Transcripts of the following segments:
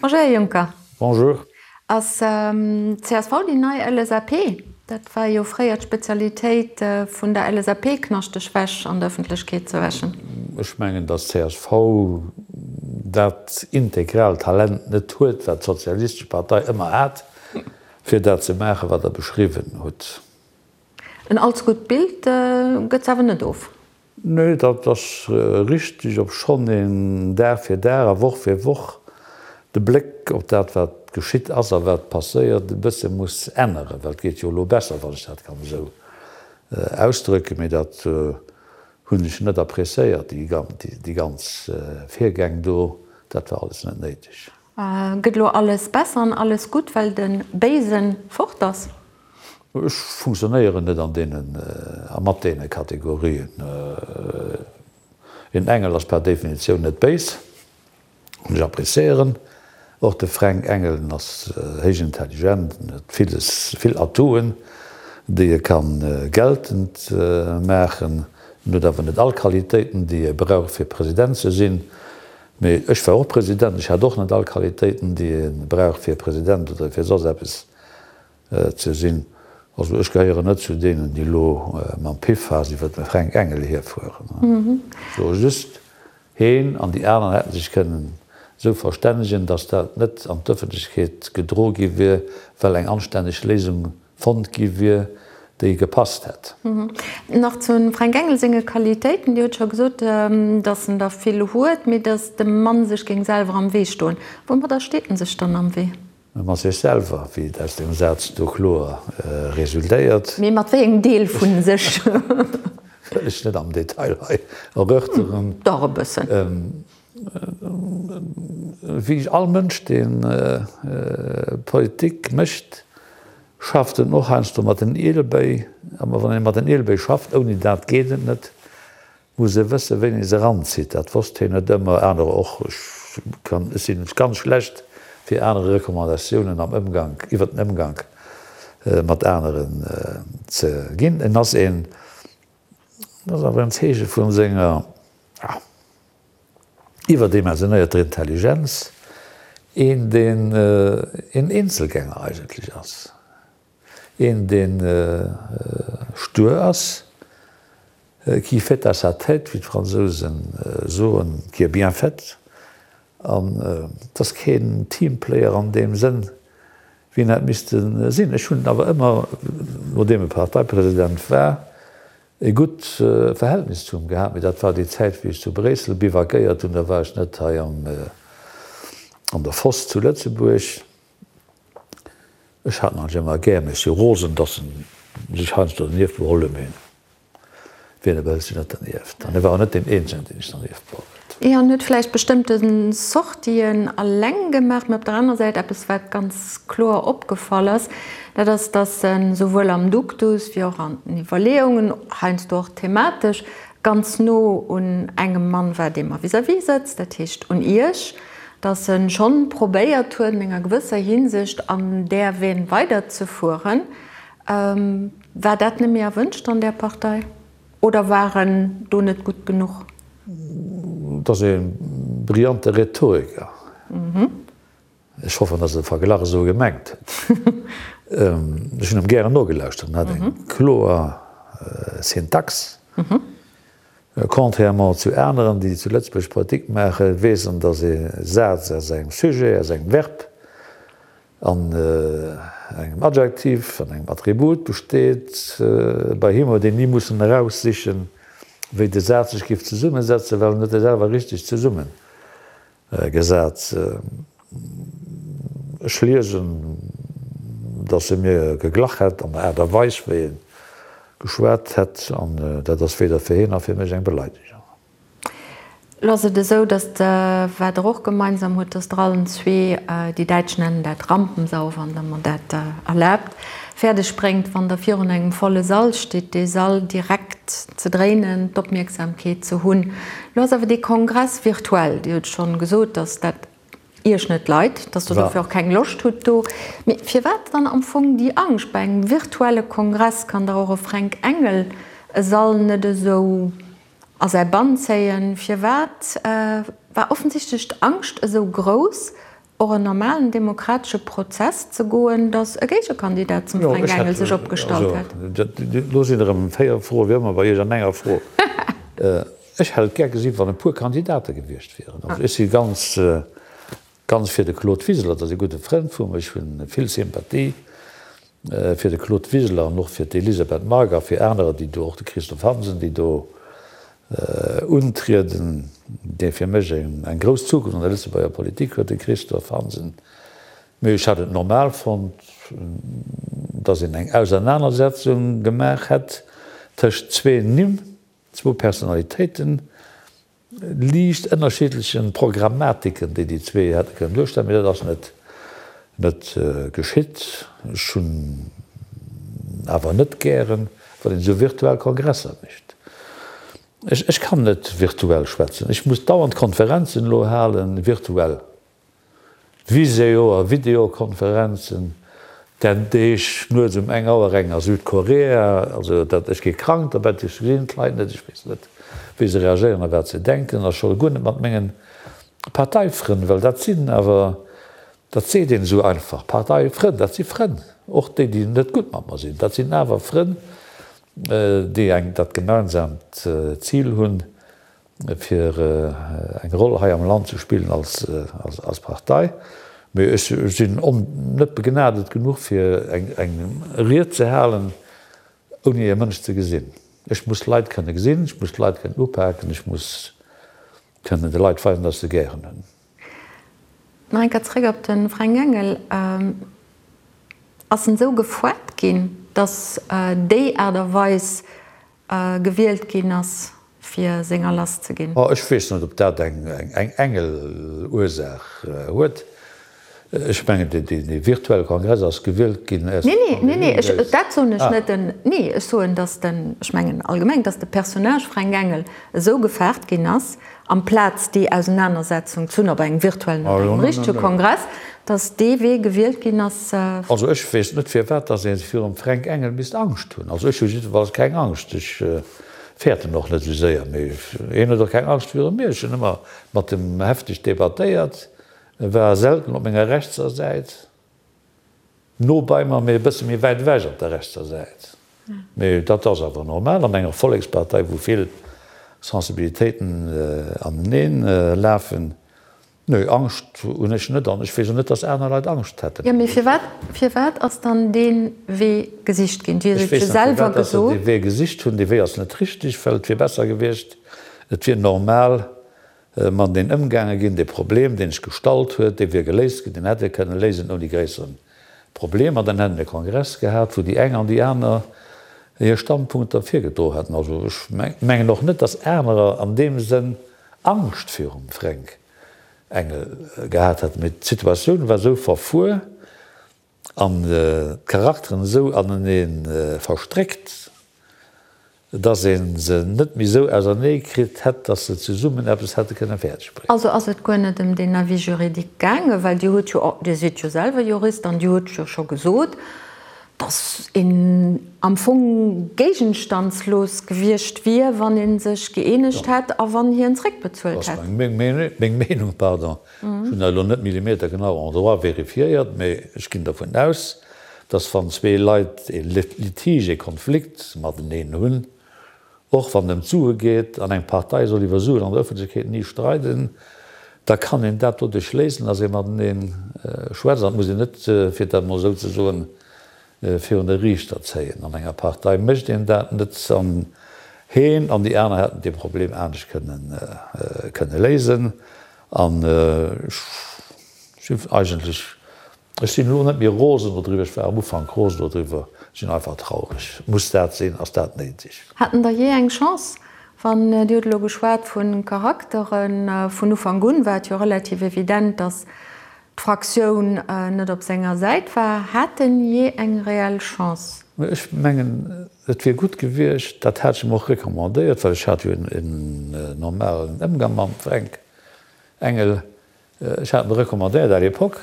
Bonjour Här Juncker. Bonjour. Ass csv déi nei LSAP? Dat war jo fréier d'Spezialitéit vun der LSAP, knaschteg Wäsch an der Ëffentlechkeet ze wäschen. Ech mengen, datt csv dat integral Talent net huet, wat d'Sozialistesch Partei ëmmer hat, fir dat ze maachen, wat Der beschriwwen hutt. En allze gutt Bild gëtt se awer net of. Nee, dat ass richteg, obschonn een Dag fir Dag a Woch fir Woch de Bléck op dat, wat geschitt ass a wat passéiert, e bësse muss änneren, well et geet jo elo besser, wann ech dat kann esou ausdrücken. Mee dat hunn ech net appréciéiert, déi ganz Virgäng do, dat war alles net néideg. Gëtt elo alles besser an alles gutt, well de Béisen fort ass? Ech funktionéieren net an deenen a mat deene Kategorien. Een Engel ass per Definitioun net béis. An ech appréciéieren och de Fränk Engel, en ass héich intelligent, en huet villes, vill Atouen, déi e ka geltend maachen. En huet awer net all Qualitéiten, déi e brauch fir President ze sinn. Mee ech war och President, ech hat och net all Qualitéiten, déi ee brauch fir President oder fir soss eppes ze sinn. Also ech gehéieren net zu deenen, déi elo mam Piffhas iwwer de Fränk Engel hierfueren. Ech soe just, heen an déi aner hätte sech kënnen esou verstännegen, datt dat net an d'Ëffentlechkeet gedro gi wier, well eng anstänneg Léisung fonnt gi wier, déi gepasst hätt. Nach zum Fränk Engel senge Qualitéiten, Dir hutt scho gesot, datt en der vill huet, mee datt de Mann sech géing selwer am Wee stoen. Woumadder steet en sech dann am Wee? Mat sech selwer, wéi et aus deem Saz do kloer resultéiert. Mee mat wéi engem Deel vu sech? Wëll ech net am Detail hei erörteren. Dach e bëssen. Wéi all Mënsch, dee Politik mécht, schafft en och heiansdo mat den Ielebéi. A wann ee mat den Ielebéi schafft, ouni dat geet et net, muss e wëssen, wéini e se eranzitt. Dat wosst hien net ëmmer, anerer och. Ech kann, ech sinn ganz schlecht fir anere Recommandatiounen am Ëmgank, iwwer den Ëmgank mat aneren ze ginn. En ass een, dat ass awer en Zeeche vu senger, ja, iwwerdimensionéierter Intelligenz, een deen een Eenzelgänger eigentlech ass, een deen stur ass, qui fait à sa tête, wéi d'Fransousen soen, qui est bien faite, an et ass keen Teamplayer an deem Sënn, wéi en hätt misste sinn. Ech hunn awer ëmmer, nodeem e Parteipresident war, E gutt Verhältnis zu him gehat, mee dat war déi Zäit wéi ech zu Bréissel bivakéiert hunn, da war ech net hei an der Foss zu Lëtzebuerg. Ech hat en eigentlech ëmmer gär, mee ech si rosen, datt en sech heiansdo dernieft beholl huet, mee wien e behëlt sech net dernieft? An e war och net deen eenzegen, deen sech dernieft beholl huet. Jo, en huet vläicht bestëmmte Sortien alleng gemaach, mee op der anerer Säit eppes wat ganz kloer opgefall ass, Dat ass, dass en souwuel am Duktus wéi och an den Iwwerleeungen, heiansdo och thematesch, ganz no un engem Mann war, dee mer vis-à-vis sëtzt, dat heescht un Iech, dass en schonn probéiert huet, an enger gewësser Hinsicht an där Veine weiderzefueren. War dat net méi erwënscht an där Partei oder war en do net gutt genuch? Et ass e brillante Rhetoriker. Ech hoffen, dass e de Verglach esou gemengt huet. Ech hunn em gären nogelauschtert. En hat eng kloer Syntax. Contrairement zu aneren, déi zu Lëtzebuerg Politik maachen, weess en, dass ee Saz aus engem Sujet, aus engem Verb an engem Adjektiv an engem Attribut besteet. Bei him huet een ni mussen eraussichen, wéi de Saz sech géif zesummesetzen, well en huet e selwer richteg zesumme Gesat. Ech liesen, datt e mir geglach hätt an der Aart a Weis, wéi e geschwat hätt, an dat ass weder fir hien nach fir mech eng Beleidegung. Elo ass et esou, datt, wat Der och gemeinsam hutt, datt Der allen zwee, déi Däitsch nennen dat Rampensau, wann Der mer dat erlaabt, fäerdeg bréngt, wann Der virun engem volle Sall stitt, dee Sall direkt ze dréinen, d'Opmierksamkeet ze hunn. Lo ass awer dee Kongress virtuell. Dir hutt schonn gesot, datt dat Iech net leit, datt Der dofir och keng Loscht hutt do. Mee firwat dann am Fong déi Angscht? Bei engem virtuelle Kongress kann dach och e Fränk Engel e Sall net esou a säi Bann zéien. Firwat war offensichtlech d'Angscht esou grouss? Och en normalen demokratesche Prozess ze goen, datt e Géigekandidat zum Fränk Engel sech opgestallt hätt. Do sinn erëm 4 Froen, wéi ëmmer bei Iech an enger Fro. Ech hätt et gär gesinn, wann e puer Kandidate gewiescht wieren. Also ech si ganz, ganz fir de Claude Wiseler, dat ass e gudde Frënd vu mer, ech hu vill Sympathie fir de Claude Wiseler an och fir d'Elisabeth Margue a fir anerer, déi do, och de Christophe Hansen, déi do untrieden, dee fir mech eng grouss Zukunft an der Lëtzebuerger Politik huet, de Christophe Hansen. Mee ech hätt et normal fonnt, datt een eng Ausernanersetzung gemaach hätt tëscht zwee Nimm, zwou Personalitéiten, liicht ënnerschiddlechen Programmatiken, déi déi zwee hätte kënnen duerstellen, mee dat ass net net geschitt. Ech hunn awer net gären, wann een esou virtuell Kongresser mécht. Ech ech kann net virtuell schwätzen. Ech muss dauernd Konferenzen elo halen, virtuell. Visio a Videokonferenzen, den Deeg nuets um eng Auer eng a Südkorea. Also dat, ech gi krank dobäi, ech gesinn d'Leit net, ech weess net, wéi se reagéieren a wat se denken, a scho guer net mat mengen Parteifrënn, well dat sinn awer, dat seet een esou einfach, Parteifrënn, dat si Frënn, och déi, déi net gutt mat mer sinn, dat sinn awer Frënn, déi eng dat gemeinsaamt Zil hunn, fir eng Roll hei am Land ze spillen als Partei. Mee ech sinn net begnadet genuch, fir eng Ried ze halen, ouni e Mënsch ze gesinn. Ech muss d'Leit kënne gesinn, ech muss d'Leit kënnen upaken, ech muss kënnen de Leit weisen, datt ech se gären hunn. Nach eng Kéier zréck op de Fränk Engel. Ass en esou gefoart ginn, datt déi Aart a Weis gewielt ginn ass, fir senger lass ze ginn? Ech weess net, ob dat eng Engel-Ursaach huet. Ech mengen, dee virtuelle Kongress ass gewielt ginn aus der Nee, nee, nee, ech, dat soen ech net. Den, nee, ech soen, datt den, ech mengen allgemeng, datt de Personnage Fränk Engel esou gefaart ginn ass, amplaz déi Ausenanersetzung ze hunn op engem virtuellen oder engem richtege Kongress, datt dee Wee gewielt ginn ass. Also ech weess net, firwat datt ee virum Fränk Engel misst Angscht hunn. Also ech hu jiddefalls keng Angscht. Ech fäerten och net esou séier. Mee hien huet och keng Angscht viru mir. Ech hunn ëmmer mat em hefteg debattéiert. E war selten op menger rechtser Säit, no bei mer, mee e bësse méi wäit ewech op der rechtser Säit. Mee dat ass awer normal an enger Vollekspartei, wou vill Sensibilitéiten aneneen lafen. Nee, Angscht hunn ech net an ech weess och net, datt aner Leit Angscht hätten. Jo, mee firwat, firwat ass dann dee Wee gesicht ginn? Dir hutt et jo selwer gesot. Ech weess net, firwat datt se dee Wee gesicht hunn. Dee Wee ass net richteg, well et wier besser gewiescht, et wier normal Mateneen ëmgaange ginn. Dee Problem, deen sech gestallt huet, dee wier geléist ginn, deen hätt ee kënne léisen ouni gréissere Problemer. Dann hätte mir e Kongress gehat, wou déi eng an déi aner hir Standpunkter virgedro hätten. Also ech mengen och net, datt anerer an deem Sënn Angscht virum Fränk Engel gehat hätten. Mee d'Situatioun war esou verfuer an d'Charakteren esou anenee verstréckt, dass ee se net méi esou ausernee kritt hätt, dass se zesummen eppes hätte kënne fäerdeg bréngen. Also ass et guer net ëm deen Avis juridique gaangen, well Dir hutt jo, Dir sidd jo selwer Jurist an Dir hutt jo scho gesot, dass een am Fong géigenstandslos gewiescht wier, wann ee sech gëeenegt hätt a wann hien zréckbezuelt hätt. Dat ass meng Meenung, pardon. Ech hunn dat elo net millimetergenau en droit vérifiéiert, mee ech ginn dervun aus, dass wann zwee Leit e Litige, e Konflikt mateneen hunn, och wann et ëm d'Sue geet, an eng Partei soll iwwer Suen an der Ëffentlechkeet ni streiden, da kann een dat doduerch léisen, dass ee matenee schwätzt. An et muss een net, fir dat emol esou ze soen, virun de Riichter zéien. An enger Partei mécht een dat net. An heen an déi aner hätten dee Problem anescht kënne léisen. An ech sinn eigentlech, ech sinn elo net méi rosen dodriwwer, ech war am Ufank rosen dodriwwer, ech sinn einfach traureg. Muss dat sinn? Ass dat néideg? Haten der jee eng Chance? Wann, Dir hutt elo geschwat vu Charakteren, vun Ufank un war et jo relativ evident, datt d'Fraktioun net op senger Säit war. Hat en jee eng reell Chance? Ech mengen, et wier gutt gewiescht, dat hat ech em och recommandéiert, well ech hat jo en normalen Ëmgang mam Fränk Engel, ech hat em recommandéiert à l'époque,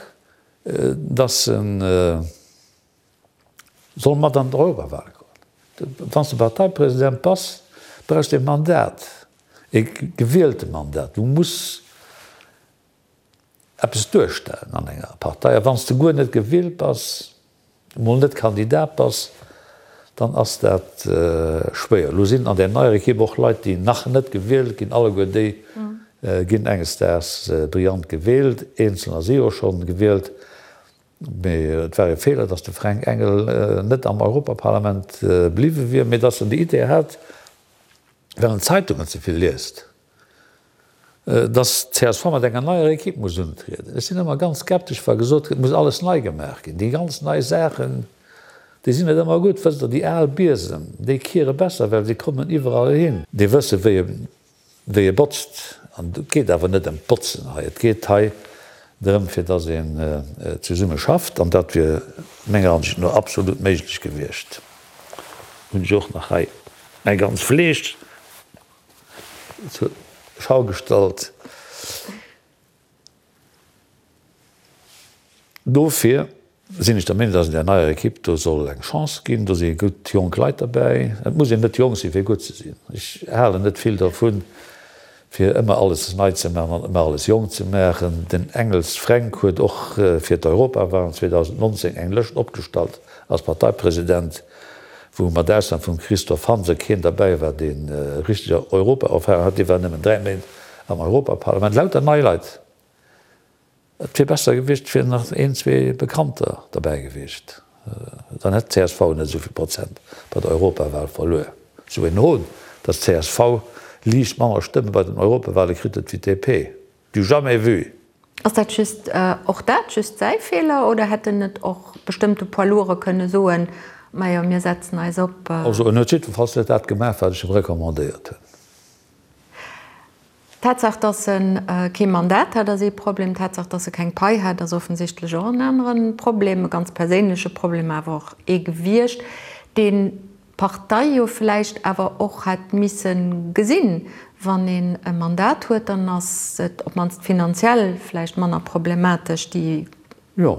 dass en soll mat an d'Europawahl goen. Wann s de Parteipresident bass, brauchs de e Mandat, e gewielte Mandat. Du muss. eppes duerstellen an enger Partei. A wann s de guer net gewielt bass, emol net Kandidat bass, dann ass dat schwéier. Elo sinn an där neier Ekipp och Leit, déi nach net gewielt ginn. Alleguer déi ginn enges Daags brillant gewielt. Eenzelner si jo schonn gewielt. Mee et war e Feeler, datt de Fränk Engel net am Europaparlament bliwwe wier, mee datt en déi Idee hat, well en d'Zeitungen ze vill liest. Dass csv mat enger neier Equipe muss untrieden. Ech sinn ëmmer ganz skeptesch, wa gesot gëtt, et muss alles nei gemaach ginn. Déi ganz nei Saachen, déi sinn net ëmmer gutt. Wësst Der, déi al Biesem, déi kiere besser, well se kommen iwwerall hin. Déi wësse wéi e, wéi e botzt. An et geet awer net ëm d'Botzen hei. Et geet hei drëm, fir dass een zesumme schafft. An dat wier menger Ansicht no absolut méiglech gewiescht. Hunn ech och nach hei mäi ganz Fleesch. Zur Schau gestallt. Dofir sinn ech der Meenung, dass een där neier Ekipp do soll eng Chance ginn. Do si gutt jonk Leit derbäi. Et muss een net jonk sinn, fir gutt ze sinn. Ech halen net vill dervun, fir ëmmer alles nei ze maachen an ëmmer alles jonk ze maachen. Den Engels Fränk huet och fir d'Europawahlen 2019 eng Lëscht opgestallt als Parteipresident. wou mat Ausnam vum Christophe Hansen keen derbäi war, dee richteg Europaerfahrung hat, dee war nëmmen 3 Méint am Europaparlament, lauter nei Leit. Et wier besser gewiescht, et wieren nach een, zwee Bekannter derbäi gewiescht, dann hätt d'CSV net esou vill Prozent bei der Europawal verluer. Esou een Hohn, datt d'CSV liicht manner Stëmme bei den Europawale kritt huet wéi d'DP. Du jamais vu! Ass dat just, och dat just säi Feeler oder hätt en net och bestëmmte Poids lourds kënne soen, majo mir setzen eis op. Also en huet jiddwerfalls net dat gemaach wat ech em recommandéiert hunn. D'Tatsaach, datt e kee Mandat hat, ass ee Problem. D'Tatsaach, datt e keng Pai hat, ass offensichtlech och en anere Problem, e ganz perséinleche Problem awer och ee gewiescht, deen d'Partei jo vläicht awer och hätt misse gesinn, wann een e Mandat huet, dann ass et op d'mannst finanziell vläicht manner problematesch, déi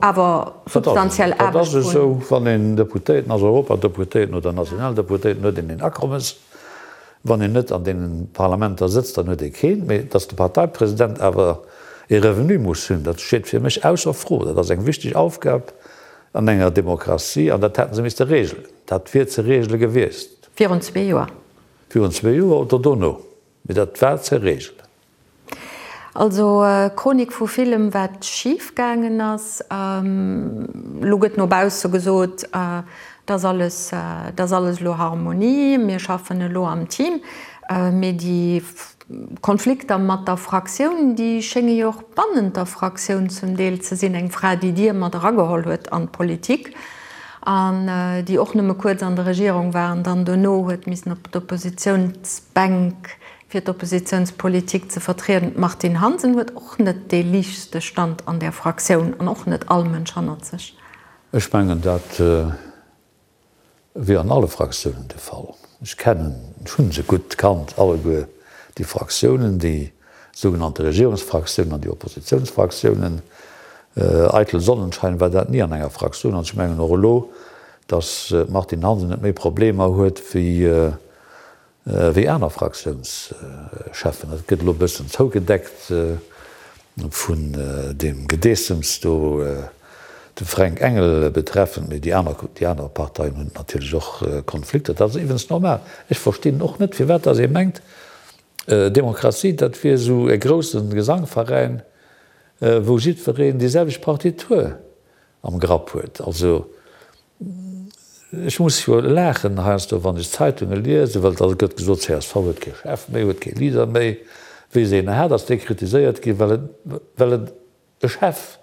awer substantiell Aarbecht vun. Dat ass esou, wann een Deputéierten ass, Europadeputéierten oder Nationaldeputéierten, huet een een Akommes. Wann een net an deene Parlamenter sëtzt, dann huet ee keen. Mee datt de Parteipresident awer ee Revenu muss hunn, dat steet fir mech ausser Fro. Dat ass eng wichteg Aufgab an enger Demokratie an dat hätte se misste regelen. Dat wier ze regele gewiescht. Virun zwee Joer. Virun zwee Joer oder dono, mee dat war ze regelen. Also Chronik vu villem wat schif gaangen ass. Elo gëtt no bausse gesot, et ass alles, et ass alles elo Harmonie, mir schaffen elo am Team. Mee déi Konflikter mat der Fraktioun, déi schénge jo och bannent der Fraktioun zum Deel ze sinn. Eng Fra, déi Dir mat erageholl huet an d'Politik an déi och nëmme kuerz an der Regierung war an dann dono huet missen op d'Oppositiounsbänk, fir d'Oppositiounspolitik ze vertrieden. D'Martine Hansen huet och net dee liichtste Stand an där Fraktioun an och net all Mënsch hannert sech. Ech mengen, dat wier an alle Fraktiounen de Fall. Ech kennen, ech hu se gutt kannt alleguer, déi Fraktiounen, déi sougenannte Regierungsfraktiounen an déi Oppositiounsfraktiounen. Eitel Sonnenschein war dat ni an enger Fraktioun. An ech mengen och elo, datt d'Martine Hansen net méi Problemer huet wéi Wéi aner Fraktiounscheffen. Dat gëtt elo e bëssen zougedeckt vun deem Gedeessems do, de Fränk Engel betreffend, mee déi aner, déi aner Parteien hunn natierlech och Konflikter. Dat ass iwwens normal. Ech verstinn och net, firwat datt ee mengt, Demokratie, dat wier esou e grousse Gesangveräin, wou jiddwereen déi selwecht Partitur am Grapp huet. Also Ech muss jo laachen heiansdo, wann ech d'Zeitunge liesen, well da gëtt gesot, csv huet kee Chef méi, huet kee Leader méi. Wéi se een hat, ass dee kritiséiert ginn, well et, well et e Chef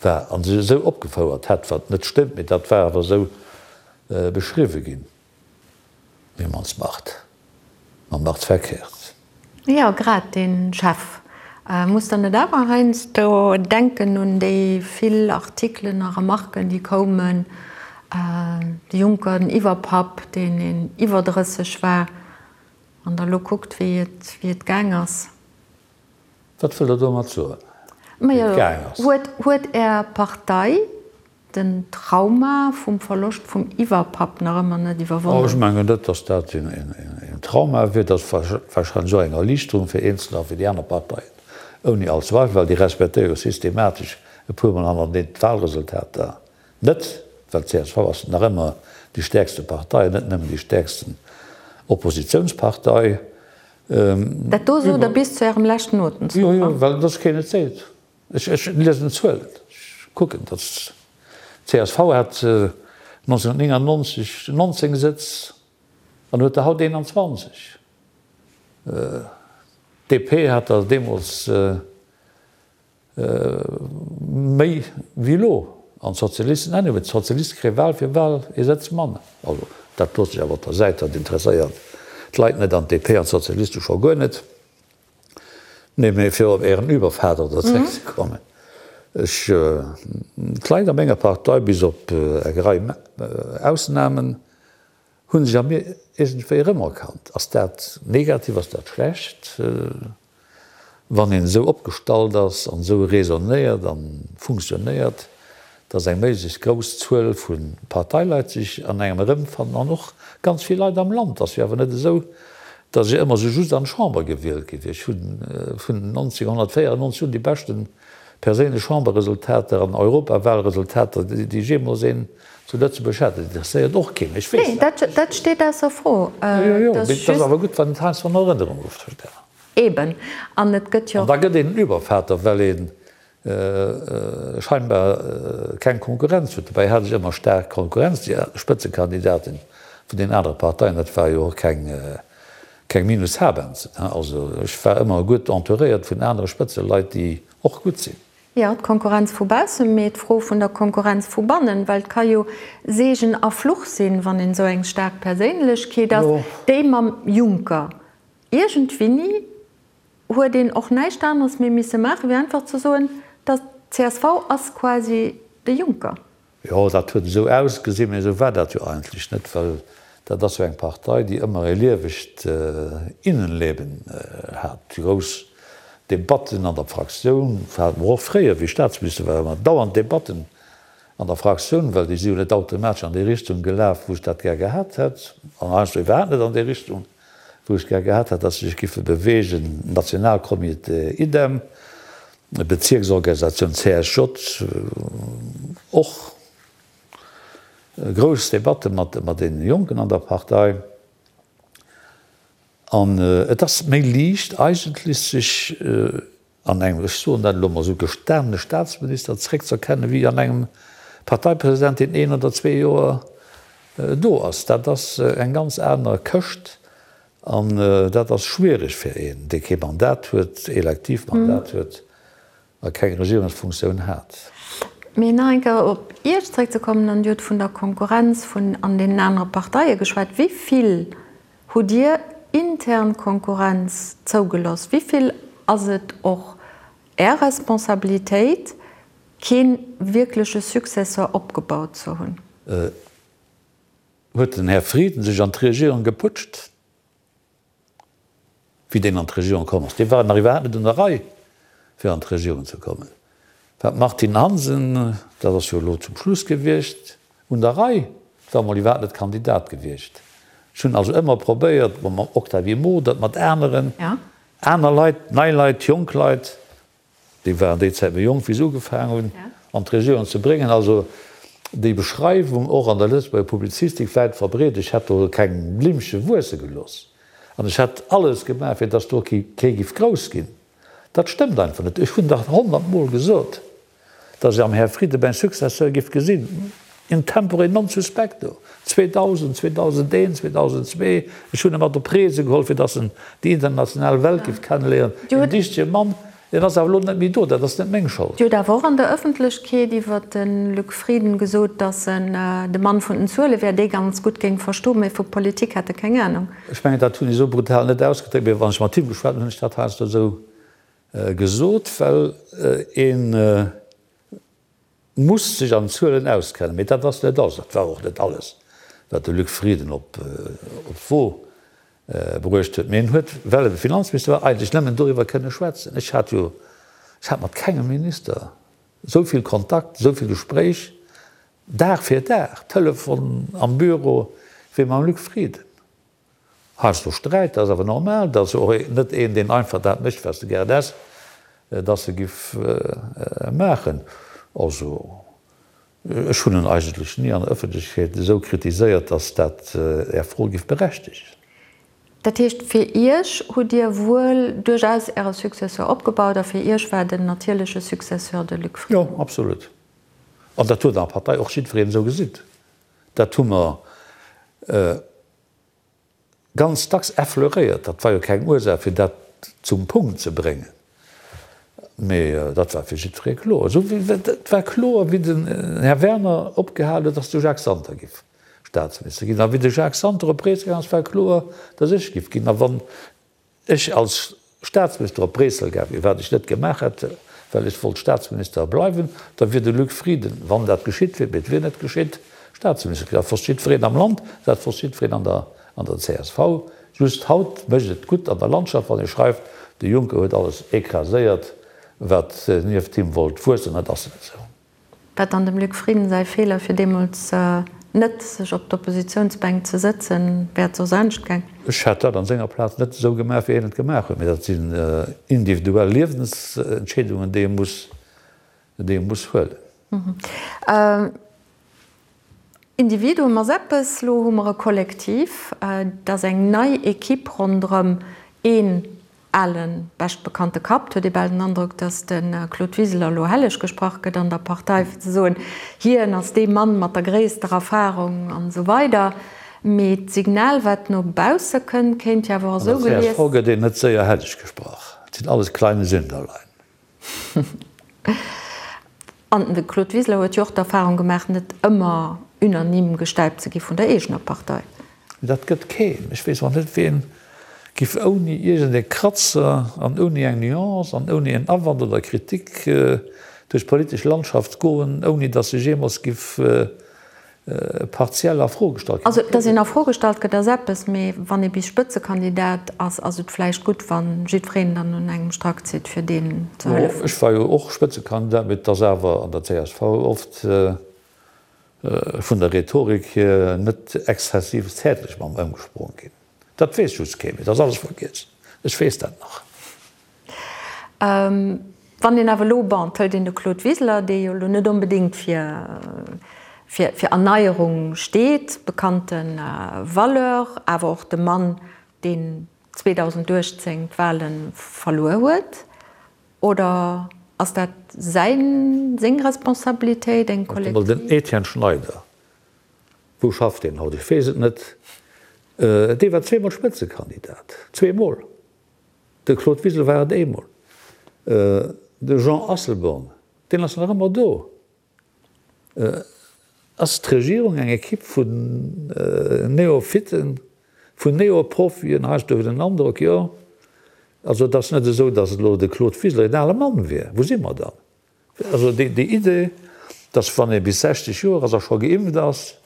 war a sech esou opgefouert hätt, wat net stëmmt, mee dat war awer esou beschriwwe ginn. Wie man's macht, man macht's verkehrt. Jo, grad dee Chef. Muss der net awer heiansdo denken un déi vill Artikelen a Remarken, déi koumen, de Juncker, den Iwwerpapp, deen een iwwer 30 war, an der elo kuckt, wéi et, wéi et gaang ass? Wat wëllt Der domat soen, wéi et gaang ass? Majo, huet, huet Är Partei Den Trauma vum Verloscht vum Iwwerpapp nach ëmmer net iwwerwonnen. Ech mengen net, datt dat een Trauma wier. Dat ass warscheinlech och eng Erliichterung fir Eenzeler a fir déi aner Parteien. Ouni all Zweifel, well déi respektéiere jo systematesch e puermol hannerteneen d'Wahlresultater net, well d'CSV ass nach ëmmer déi stäerkste Partei an net nëmmen déi stäerksten Oppositiounspartei. Dat do sot Der bis zu Ärem leschten Otemzuch? Jo, jo, well dass keen et seet. Ech liesen d'Zuelen, ech kucken, dass d'CSV hat 1999 19 Sëtz an huet der haut 21. D'DP hat der deemools méi wéi elo an d'Sozialisten anyway. D'Sozialiste kréie Wahl fir Wahl ee Sëtz manner. Also dat loosse ech awer op der Säit, dat interesséiert d'Leit net an d'DP an d'Sozialiste scho guer net. Nee, mee fir op Ären Übervater do zréckzekommen, ech, d'Leit a menger Partei, bis op eng Rei Ausnamen, hu sech a mir iergendwéi erëmerkannt. Ass dat negativ, ass dat schlecht? Wann een esou opgestallt ass an esou raisonnéiert a funktionéiert, dass eng méiglechst grouss Zuel vu Parteileit sech an engem erëmfannen an och ganz vill Leit am Land. Ass jo awer net esou, dass ech ëmmer esou just an d'Chamber gewielt gi wier. Ech hu vun 1994 un déi beschte perséinlech Chamberresultater an Europawalresultater, déi ech jeemools een zu Lëtzebuerg hat. Dat interesséiert och keen, ech weess dat. Nee, dat steet ausser Fro. Jo, jo, mee et ass awer gutt, wann et heiansdo an Erënnerung ruff. Eben. An et gëtt jo. An da gëtt een en Übervater, well ee scheinbar keng Konkurrenz huet. Dobäi hat ech ëmmer staark Konkurrenz, déi Spëtzekandidaten vun den anere Parteien, dat war jo och keng, keng Minus Habenzen. Also ech war ëmmer gutt entouréiert vun anere Spëtzeleit, déi och gutt sinn. Jo, d'Konkurrenz vu baussen, mee d'Fro vun der Konkurrenz vu bannen, well et ka jo Seegen a Fluch sinn, wann een esou eng staark Perséinlechkeet ass, déi mam Juncker Iergendwéini huet een och näischt aneres méi misse maachen, wéi einfach ze soen, dass d'CSV ass quasi de Juncker. Jo, dat huet esou ausgesinn, mä esou war dat jo eigentlech net, well dat ass jo eng Partei, déi ëmmer e liewegt Innenleben hat. Déi grouss Debatten an der Fraktioun hate mer och fréier, wéi ech Staatsminister war, ëmmer dauernd Debatten an der Fraktioun, well déi si jo net automatesch an déi Richtung gelaf, wou ech dat gär gehat hätt, an heiansdo iwwerhaapt net an déi Richtung. wou ech gär gehat hätt, dass se sech giffe bewegen, Nationalcomité idem, Bezierksorganisatioun CSJ, och grouss Debatte mat deene Jonken an der Partei. An et ass méi liicht eigentlech sech an engem, ech soen dat elo emol esou, gestanene Staatsminister zréckz'erkennen, wéi an engem Parteipresident, deen een oder zwee Joer do ass. Dat ass eng ganz aner Këscht an dat ass schwiereg fir een, dee kee Mandat huet, elektiv Mandat huet a keng Regierungsfunktioun hat. Mee nach eng Kéier op Iech zréckzekommen, an Dir hutt vun der Konkurrenz vun an deenen anere Parteie geschwat, Wéi vill Hutt Dir intern Konkurrenz zougeloss? Wéi vill ass et och Är Responsabilitéit, kee wierkleche Successeur opgebaut ze hunn? Huet den Här Frieden sech an d'Regierung geputscht, wéi deen an d'Regierung komm ass? Dee war nach iwwerhaapt net un der Rei, fir an d'Regierung ze kommen. War d'Martine Hansen, dat ass jo elo zum Schluss gewiescht, un der Rei, war emol iwwerhaapt net Kandidat gewiescht. Ech hunn also ëmmer probéiert, mam Octavie Modert, mat aneren, aner Leit, nei Leit, jonk Leit, déi waren déi Zäit méi jonk, wéi se ugefaangen hunn, an d'Regierung ze bréngen. Also déi Beschreiwung, och an der Lëtzebuerger Publizistik wäit verbreet, ech hätt do keng Blimmche wuesse gelooss an ech hätt alles gemaach, fir datt do kee giff grouss ginn, Dat stëmmt einfach net. Ech hunn dach honnertmol gesot, datt ech am Här Frieden mäin Successeur giff gesinn, in tempore non suspecto, 2000, 2001, 2002. Ech hunn e mat op Reese geholl, fir datt en déi international Welt giff kenneléieren. Een dichtege Mann, deen ass awer elo net méi do. Dat ass net meng Schold. Dir hutt awer och an der Ëffentlechkeet iwwer de Luc Frieden gesot, datt en de Mann vun den Zuele wär, dee ganz gutt géing verstoen, mä vu Politik hätt e keng Anung. Ech mengen, dat hunn ech esou brutal net ausgedréckt, mee wann ech mat him geschwat hunn, hunn ech dat heiansdo esou gesot, well ee muss sech an Zuelen auskennen. Mee dat ass net alles, dat war och net alles, wat de Luc Frieden op d'Wo bruecht huet. Mee en huet, well e Finanzminister war, eigentlech nëmmen doriwwer kënne schwätzen. Ech hat jo, ech hat mat kengem Minister esou vill Kontakt, esou vill Gespréich, Dag fir Dag, Telefon am Büro, wéi mam Luc Frieden. Heiansdo Sträit, dat ass awer normal, dat ass jo och net een, deen einfach dat mécht, wat s de gären häss. dass e giff maachen. Also, ech hunn en eigentlech ni an der Ëffentlechkeet esou kritiséiert, dass dat Är Fro giff berechtegen. Dat heescht, fir Iech hutt Dir wuel duerchaus Äre Successeur opgebaut a fir Iech war den natierleche Successeur de Luc Frieden? Jo, absolut. An dat huet an der Partei och jiddwereen esou gesinn. Dat hu mer ganz dacks effleuréiert. Dat war jo keng Ursaach, fir dat zum Punkt ze bréngen, mee dat war fir jiddweree kloer. Esou wéi et war kloer, wéi den Här Werner opgehal huet, datt de Jacques Santer giff Staatsminister ginn. A wéi de Jacques Santer op Bréissel gaang ass, war kloer, datt ech giff ginn. A wann ech als Staatsminister op Bréissel gaang wier, wat ech net gemaach hätt, well ech wollt Staatsminister bleiwen, da wier de Luc Frieden, wann dat geschitt wier, mee et wier net geschitt, Staatsminister ginn. Dat wosst jiddwereen am Land, dat wosst jiddwereen an der an der csv. Just haut mécht et gutt an der Landschaft, wann ee schreift, de Juncker huet alles écraséiert, wat nieft him wollt wuessen. Dat ass net esou. War dann dem Luc Frieden säi Feeler fir deemools net sech op d'Oppositiounsbänk ze sëtzen? Wär et soss anescht gaang? Ech hätt dat an senger Plaz net esou gemaach wéi hien et gemaach huet, mee dat sinn individuell Liewensentscheedungen déi ee muss, déi ee muss huelen. Individuum ass eppes, lo hu mer e Kollektiv, et ass eng nei Equipe ronderëm een ale beschtbekannte Kapp. Et huet ee bal den Androck, datt de Claude Wiseler elo helleg gesprach gëtt an der Partei, fir ze soen, hien ass dee Mann mat der gréisster Erfarung an esou weider. Mee d'Signal, wat no bausse kënnt, kéint jo awer och esou gelies. An der csv gëtt een net séier helleg gesprach. Et sinn alles kleine Sünderlein. An de Claude Wiseler huet jo och d'Erfahrung gemaach, net ëmmer unanime gestäipt ze gi vun der eegener Partei. Dat gëtt keen. Ech weess och net, ween giff ouni iergend e Kratzer an ouni eng Nuance an ouni en Awand oder Kritik duerch d'politesch Landschaft goen, ouni datt sech jeemools giff partiell a Fro gestallt ginn. Also, datt een a Fro gestallt gëtt, ass eppes, mee wann ee bis Spëtzekandidat ass, ass et vläicht gutt, wa jiddwereen dann un engem Strack zitt, fir deem ze hëllefen. Ech war jo och Spëtzekandidat, mee et ass awer an der csv oft vun der Rhetorik hier net exzessiv zäertlech mam ëmgesprong ginn. Dat weess just kee méi, dat ass alles vergiess. Ech weess dat nach. Wann een awer elo, bon, et hëlt een de Claude Wiseler, dee jo elo net onbedéngt fir, fir, fir Erneierung steet, bekannte Valeur, awer och de Mann, deen 2018 d'Wahle verluer huet, oder ass dat säin, seng Responsabilitéit, eng kollektiv? Den Etienne Schneider, wou schafft deen haut? Ech weess et net. Dee war zweemol Spëtzekandidat, zweemol. De Claude Wiseler war et eemol. De Jean Asselborn, deen ass nach ëmmer do. Ass d'Regierung eng Ekipp vun Neophyten, vun Neoprofien? Heiansdo huet een den Androck, jo. Also et ass net esou, datt elo de Claude Wiseler een ale Mann wier. Wou si mer dann? Also déi Idee, dass wann ee bis 60 Joer ass a scho geimpft ass,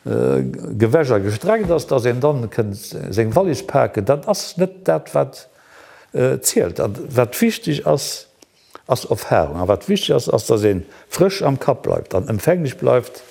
gewäsch a gestreckt ass, dass een dann kënnt seng Wallis paken, dat ass net dat wat zielt. A wat wichteg ass, ass Erfahrung. A wat wichteg ass, ass, dass ee frësch am Kapp bleift an empfänglech bleift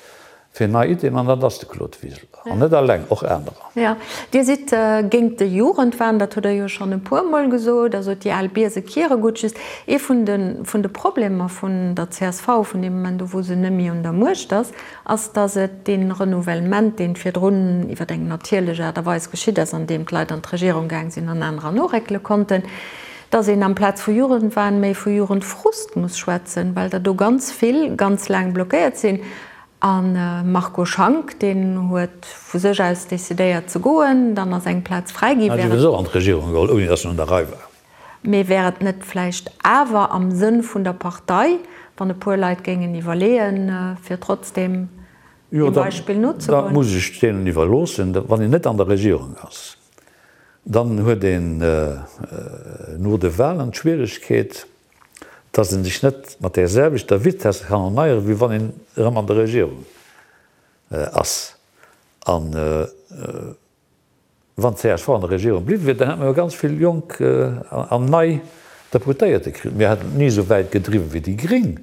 Fir nei Iddien, an dat ass de Claude Wiseler, an net alleng, och anerer. Jo, Dir sidd géint de Jugendwahn, dat hutt Der jo schonn e puermol gesot. Also déi al Biese kiere gutt. Just ee vun de vun de Problemer vun der csv, vun deem Moment u wou se net méi un der Muecht ass, ass, datt et dee Renouvellement, deen virdrun iwwer eng natierlech Aart a Weis geschitt ass, andeem d'Leit an d'Regierung gaang sinn an anerer noréckele konnten, datt een amplaz vu Jugendwahn méi vu Jugendfrust muss schwätzen, well der do ganz vill ganz laang blockéiert sinn. A Marco Schank, deen huet vu sech aus decidéiert ze goen, dann ass eng Plaz fräi ginn. Hat souwisou an d'Regierung geholl, ouni datt en un der Rei war. Mee wär et net vläicht awer am Sënn vun der Partei, wann e puer Leit géingen iwwerleeën, fir trotzdem deem Beispill nozegoen? Jo, dat muss ech deenen iwwerloossen. Wann een net an der Regierung ass, dann huet een no de Wahlen d'Schwieregkeet, dass ee sech net mat där selwechter Vitesse kann erneieren, wéi wann een erëm an der Regierung ass. A wann csv an der Regierung bliwwe wier, dann hätte mer jo ganz vill jonk an nei Deputéierte kritt. Mir hätten et ni esou wäit gedriwwen wéi déi Gréng,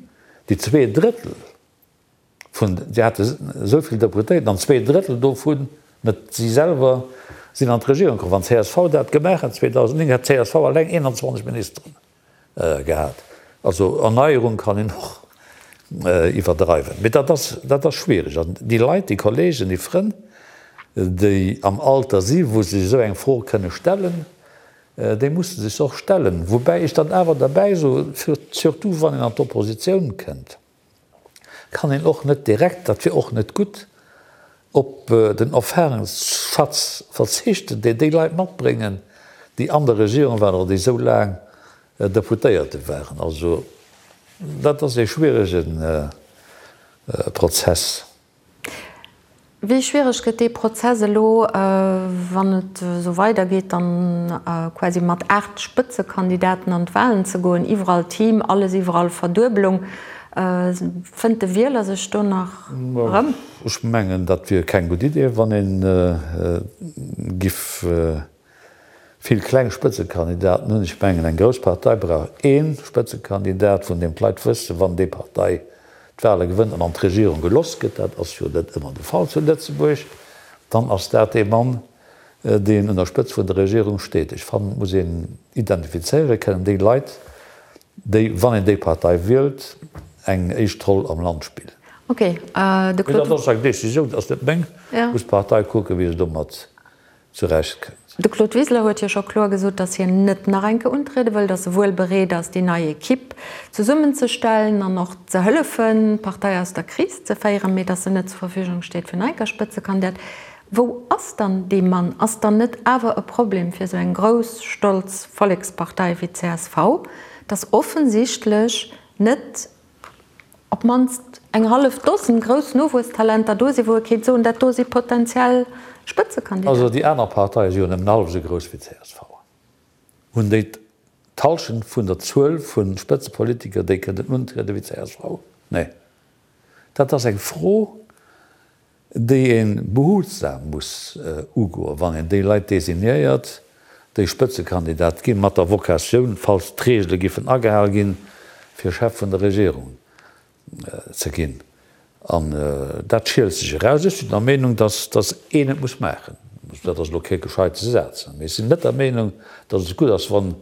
déi Zweedrëttel vun, si hate esou vill Deputéierten an Zweedrëttel dovun, net si selwer, sinn an d'Regierung komm. Wann csv dat gemaach hätt 2009, hätt csv alleng 21 Ministeren. Gehat. Also Erneierung kann een och iwwerdreiwen, mee dat ass, dat ass schwierig. An déi Leit, déi Kollegen, déi Frënn, déi am Alter si wou se sech esou eng Fro kënne stellen, déi musse sech se och stellen. Woubäi ech dann awer derbäi soen, surtout wann een an d'Oppositioun kënnt, kann een och net direkt, dat wier och net gutt, op den Erfahrungsschatz verzichten, deen déi Leit matbréngen, déi an der Regierung waren oder déi esou laang Deputéierte waren. Also dat ass ee schwierege Prozess. Wéi schwiereg gëtt dee Prozess elo, wann et esou weidergeet, dann quasi mat 8 Spëtzekandidaten an d'Wahlen ze goen, iwwerall Team, alles iwwerall Verduebelung. Fënnt de Wieler sech do nach erëm? Ech mengen, dat wier keng gutt Idee, wann ee giff Vill kleng Spëtzekandidaten hunn. Ech mengen, eng grouss Partei brauch ee Spëtzekandidat, vun deem d'Leit wëssen, wann déi Partei d'Wahle gewënnt an an d'Regierung geloss gëtt, dat ass jo net ëmmer de Fall zu Lëtzebuerg, dann ass dat dee Mann, deen un der Spëtzt vun der Regierung steet. Ech fannen, et muss een identifizéiere kënnen, déi Leit, déi, wann een déi Partei wielt, eng éischt Roll am Land spillen. Okay, de Claude. Mee dat ass eng Décisioun, dat ass net meng. Muss d'Partei kucken, wéi se domat zurecht kënnt. De Claude Wiseler huet jo scho kloer gesot, datt hien net nach eng Kéier untriede wëll, datt e wuel bereet ass, déi nei Equipe zesummenzestellen an och ze hëllefen, d'Partei aus der Kris ze féieren, mee datt en net zur Verfügung steet fir nach eng Kéier Spëtzekandidat. Wou ass dann dee Mann? Ass dann net awer e Problem fir esou eng grouss, stolz Vollekspartei wéi d'CSV, datt offensichtlech net op d'mannst eng hallef Dosen grouss Nowuesstalenter do sinn, wou e kéint soen, dat do si potentiell Spëtzekandidaten. Also déi aner Parteie si jo nëmmen hallef esou grouss wéi csv. Hunn déi d'Hallschent vun der Zuel vu Spëtzepolitiker, déi kënnen untrieden, wéi csv? Nee. Dat ass eng Fro, déi ee behutsam muss ugoen, wann een déi Leit designéiert, déi Spëtzekandidat ginn, mat der Vocatioun, falls d'Regele giffen agehal ginn, fir Chef vun der Regierung ze ginn. An dat schielt sech eraus. Ech sinn der Meenung, datt een et muss maachen. Dat ass elo kee gescheite Saz, mee ech sinn net der Meenung, datt et gutt ass, wann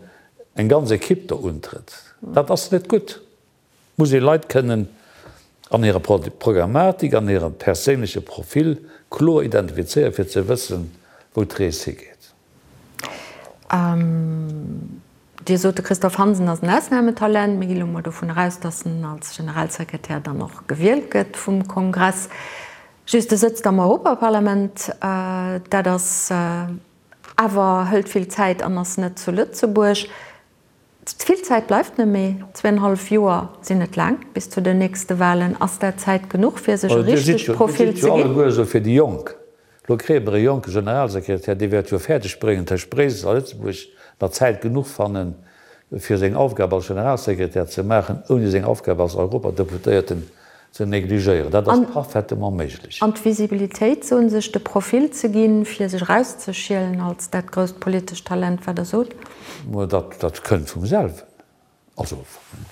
eng ganz Equipe do untrëtt. Dat ass net gutt. Muss ee Leit kënnen an hirer Programmatik, an hirem perséinleche Profil kloer identifizéieren, fir ze wëssen, wou d'Rees higeet. Dir sot, de Christophe Hansen ass en Ausnametalent. Mir gi lo mol dovun eraus, datt en als Generalsekretär dann och gewielt gëtt vum Kongress. Just, e sëtzt am Europaparlament. Dat ass awer, hëlt vill Zäit an ass net zu Lëtzebuerg. Vill Zäit bleift net méi, zweenhallef Joer sinn net laang bis zu den nächste Walen. Ass dat Zäit genuch fir sech e richtegt Profil ze ginn? Dir sidd jo alleguer esou fir déi Jonk. Elo kréie mer e jonke Generalsekretär, dee wäert jo fäerdeg bréngen, tëscht Bréissel a Lëtzebuerg nach Zäit genuch fannen, fir seng Aufgab als Generalsekretär ze maachen, ouni seng Aufgab als Europadeputéierten ze negligéieren. Dat ass parfaitement méiglech. An d'Visibilitéit, soen, sech de Profil ze ginn, fir sech erauszeschielen als dat grousst politescht Talent, wat Der sot? Dat, dat kënnt vum selwen. Also,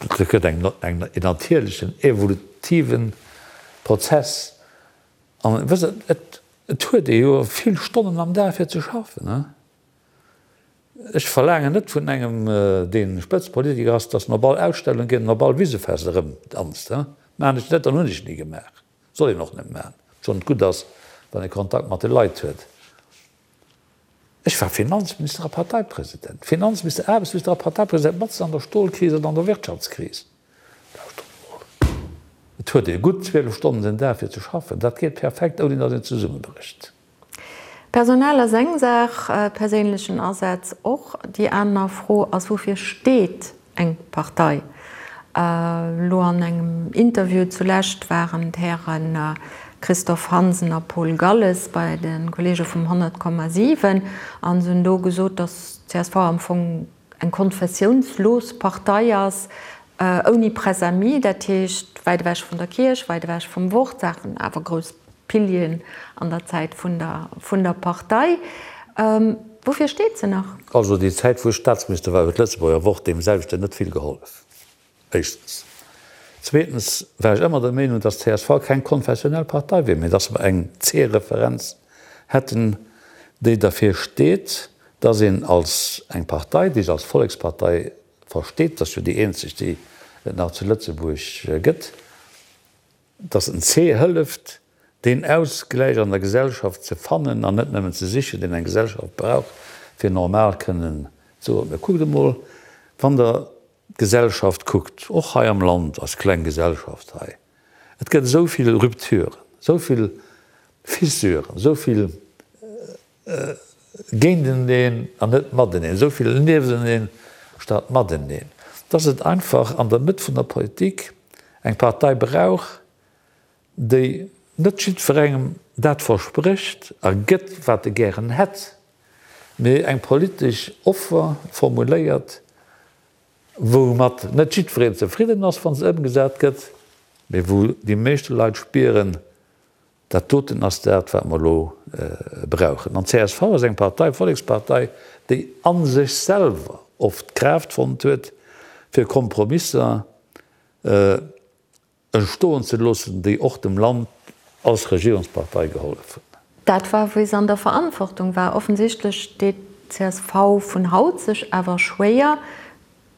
dat gëtt eng, eng, en natierlechen, evolutive Prozess. An, wësst Der, et, et huet ee jo vill Stonnen am Dag fir ze schaffen, ne? Ech verlaangen net vun engem, dee Spëtzepolitiker ass, datt en op all Ausstellung geet an op all Wisefest erëmdanzt. Maachen ech net an hunn ech ni gemaach. Soll een och net maachen, obschonn et gutt ass, wann ee Kontakt mat de Leit huet. Ech war Finanzminister a Parteipresident, Finanzminister, Aarbechtsminister a Parteipresident, matzen an der Stolkris an an der Wirtschaftskris. Lauschtert emol, et huet ee gutt 12 Stonnen den Dag fir ze schaffen. Dat geet perfekt, ouni datt een zesummebrécht. Personal ass eng Saach, perséinlechen Asaz och. Déi aner Fro ass, Woufir steet eng Partei? Elo an engem Interview zulescht waren d'Häre Christophe Hansen a Paul Galles bei de Kolleege vum 100,7 a se hunn do gesot, datt csv am Fong eng konfessiounslos Partei ass, ouni Press-amis, dat heescht wäit ewech vun der Kierch, wäit ewech vum Wort, Saachen awer grouss Pilieren an der Zäit vun der vun der Partei. Woufir steet se nach? Also déi Zäit wou ech Staatsminister war huet d'Lëtzebuerger Wort deem selwechten net vill gehollef. Éischtens. Zweetens war ech ëmmer der Meenung, datt csv keng konfessionell Partei wier, mee datt mer eng C-Referenz hätten, déi derfir steet, datt een als eng Partei, déi sech als Vollekspartei. versteet, dat ass jo déi eenzeg, déi et nach zu Lëtzebuerg gëtt, dass en C hëlleft, deen Ausgläich an der Gesellschaft ze fannen an net nëmmen ze sichen, deen eng Gesellschaft brauch, fir normal kënnen ze ootmen. Kuckt emol, wann Der d'Gesellschaft kuckt, och hei am Land, eis kleng Gesellschaft hei, et gëtt esou vill Rupturen, esou vill Fissuren, esou vill géinteneen an net mateneen, esou vill niefteneen statt mateneen, dass et einfach an der Mëtt vun der Politik eng Partei brauch, déi net jiddwerengem dat versprécht a gëtt, wat e gären hätt, mee eng politesch Offer formuléiert, woumat net jiddwereen zefridden ass, wa se ëmgesat gëtt, mee wou déi meeschte Leit spieren, Dat doten ass dat, wat mer elo brauchen. An d'CSV ass eng Partei, Vollekspartei, déi a sech selwer oft d'Kraaft fonnt huet, fir Kompromisser entstoen ze loossen, déi och dem Land als Regierungspartei gehollef hunn. Dat war, wéi se an der Verantwortung war. Offensichtlech deet d'CSV vun haut sech awer schwéier,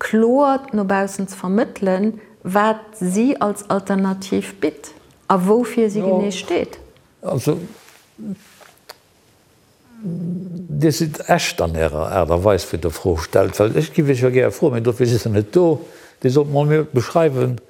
kloer no baussen ze vermëttelen, wat si als Alternativ bitt a woufir si genee steet. Also, Dir sidd echt an Ärer Aart a Weis, wéi Der Fro stellt, well ech giff Iech jo gäre froen, mee dofir sidd Der net do, Dir sollt mol mir beschreiwen,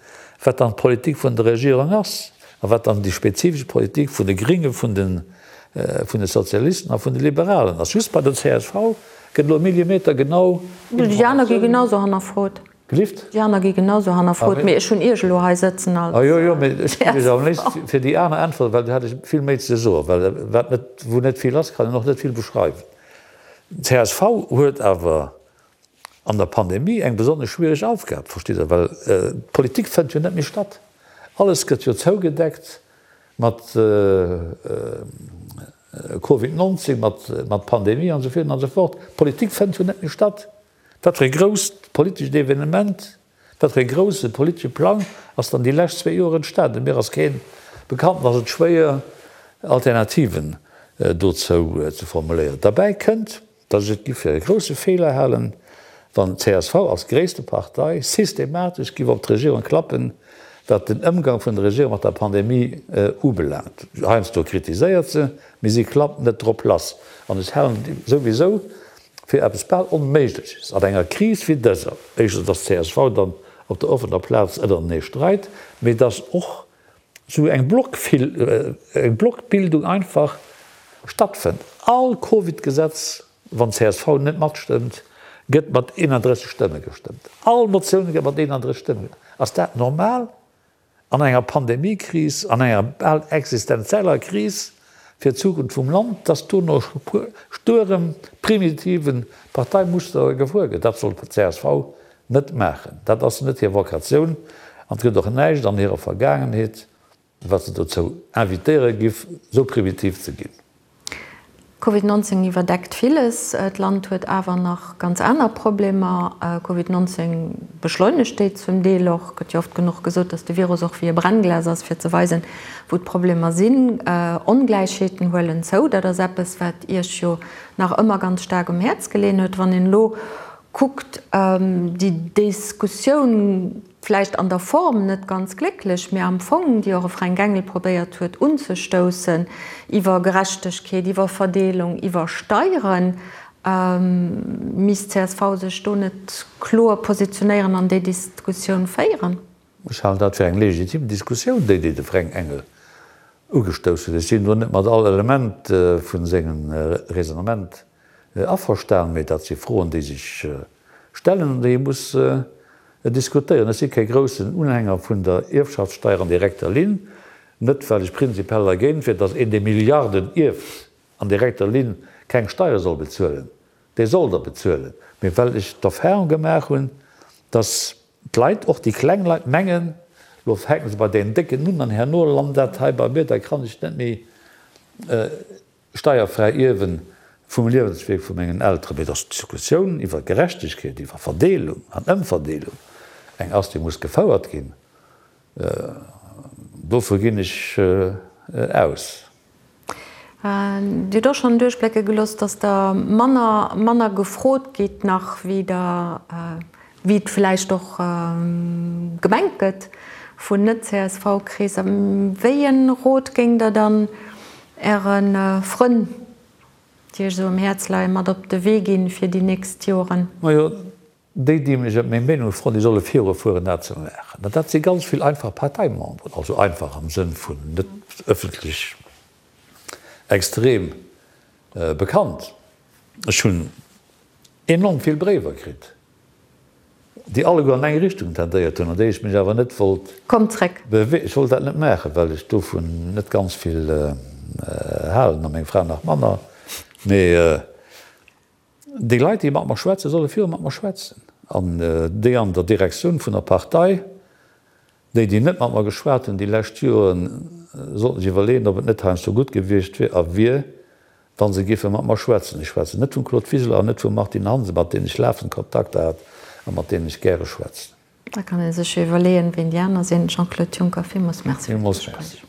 wat dann d'Politik vun der Regierung ass a wat dann déi spezifesch Politik vun de Gringe, vun de Sozialisten a vun de Liberalen ass. Just bei der csv Gëtt elo Millimeter genau Déi aner gi genau sou hannerfrot. Gelift? Déi aner gi genau sou hannerfrot, mee ech hunn Iech elo hei sëtzen als. Ah jo, jo, mee ech géif Iech am léifsten fir déi aner äntweren, well do hätt ech vill méi ze soen, well wat net, wou net vill ass, kann een och net vill beschreiwen. Csv huet awer an der Pandemie eng besonnesch schwiereg Aufgab, verstitt Der, well d'Politik fënnt jo net méi statt. Alles gëtt jo zougedeckt mat Covid 19, mat Pandemie an esou virun an esou fort. D'Politik fënnt jo net méi statt. Wat fir e grousst politescht Evenement, wat fir e grousse politesche Plang ass dann déi lescht zwéi Joer entstanen? Mir ass keen bekannt an ass et schwéier Alternativen dozou ze formuléieren. Derbäi kënnt, Datt ech et giff fir e grousse Feeler halen, wann csv als gréisste Partei systematesch giff op d'Regierung klappen, wat den Ëmgang vun der Regierung mat der Pandemie ubelaangt. Heiansdo kritiséiert se, mee si klappt net drop lass. An ech halen et souwisou fir eppes bal Onméigleches an enger Kris wéi dëser, éischtens, datt csv dann op der offener Plaz ënnerenee streit, mee datt och sou eng Blockbildung einfach stattfënnt. All Covid-Gesetz, wann csv net matstëmmt, gëtt mat 31 Stëmme gestëmmt. All Motioun gëtt mat 31 Stëmme gestëmmt. Ass dat normal an enger Pandemiekris, an enger bal existenzieller Kris fir d'Zukunft vum Land, dass do no stuerem, primitiven Parteimuster gefuer gëtt? Dat soll csv net maachen. Dat ass net hir Vokatioun an et gëtt och näischt an hirer Vergaangenheet, wat se dozou invitéiere giff, esou primitiv ze ginn. Covid 19 iwwerdeckt villes. D'Land huet awer nach ganz aner Problemer. Covid 19 beschleunegt déi zum Deel och. Gëtt jo oft genuch gesot, datt de Virus och wéi e Brennglas ass, fir ze weisen, wou d'Problemer sinn. Ongläichheeten huelen zou. Dat ass eppes, wat Iech jo nach ëmmer ganz staark um Häerz geleeën huet. Wann een elo kuckt, déi Diskussioun, vläicht an der Form net ganz glécklech, mä am Fong, déi och e Fränk Engel probéiert huet unzestoussen, iwwer Gerechtegkeet, iwwer Verdeelung, iwwer Steieren, misst csv sech do net kloer positionéieren an déi Diskussioun féieren? Ech halen dat fir eng legitim Diskussioun, déi déi de Fränk Engel ugestouss huet. Ech sinn do net mat all Element vu sengem Raisonnement Averstan, mee dat si Froen, déi sech stellen an déi ee muss diskutéieren. Ech si kee groussen Unhänger vun der Ierfschaftssteier an direkter Linn, net well ech prinzipiell dergéint wier, datt een, dee Milliarden ierft, an direkter Linn keng Steiere soll bezuelen, dee soll der bezuelen, mee well ech d'Erfahrung gemaach hunn, datt d'Leit, och déi kleng Leit, mengen, lo fänke se bei deenen Décken un an herno lant dat hei bei mir, da kann ech net méi Steierfräi Ierwen vum Liewenswierk vu mengen Elteren, mee dass d'Diskussioun iwwer Gerechtegkeet, iwwer Verdeelung an Ëmverdeelung eng ass, déi muss gefouert ginn, dovu ginn ech aus. Dir hutt och schonn duerchblécke gelooss, dass Der manner, manner gefrot gitt nach, wéi Der. Wéi et vläicht och gemengt gëtt vun Net-CSV-Kreesser. Wéi e Rot géingt Der dann Äre Frënn, déi Iech esou um Häerz leien, mat op de Wee ginn fir déi nächst Joren? Majo, déi, déi mech ëm meng Meenung froen, déi solle virufueren, dat ze maachen. An dat si ganz vill einfach Parteimemberen, also einfach am Sënn vun net ëffentlech extrem bekannt. Ech hunn enorm vill Bréiwer kritt, déi alleguer an eng Richtung tendéiert hunn, an déi ech mech awer net wollt Komm zréck! Beweegen. Ech wollt dat net maachen, well ech dovun net ganz vill halen, a meng Fra nach manner. Mee déi Leit, déi mat mer schwätzen, solle viru mat mer schwätzen. An déi an der Direktioun vun der Partei, déi, déi net mat mer geschwat hunn déi lescht Joren, sollten sech iwwerleeën, ob et net heiansdo gutt gewiescht wier a wier, wa se géife mat mer schwätzen. Ech schwätzen net vum Claude Wiseler an net vum Martine Hansen, mat deenen ech lafend Kontakter hat a mat deenen ech gäre schwätzen. Da kann ee sech jo iwwerleeën, ween déi aner sinn. Jean-Claude Juncker, villmools Merci fir d'Gespréich.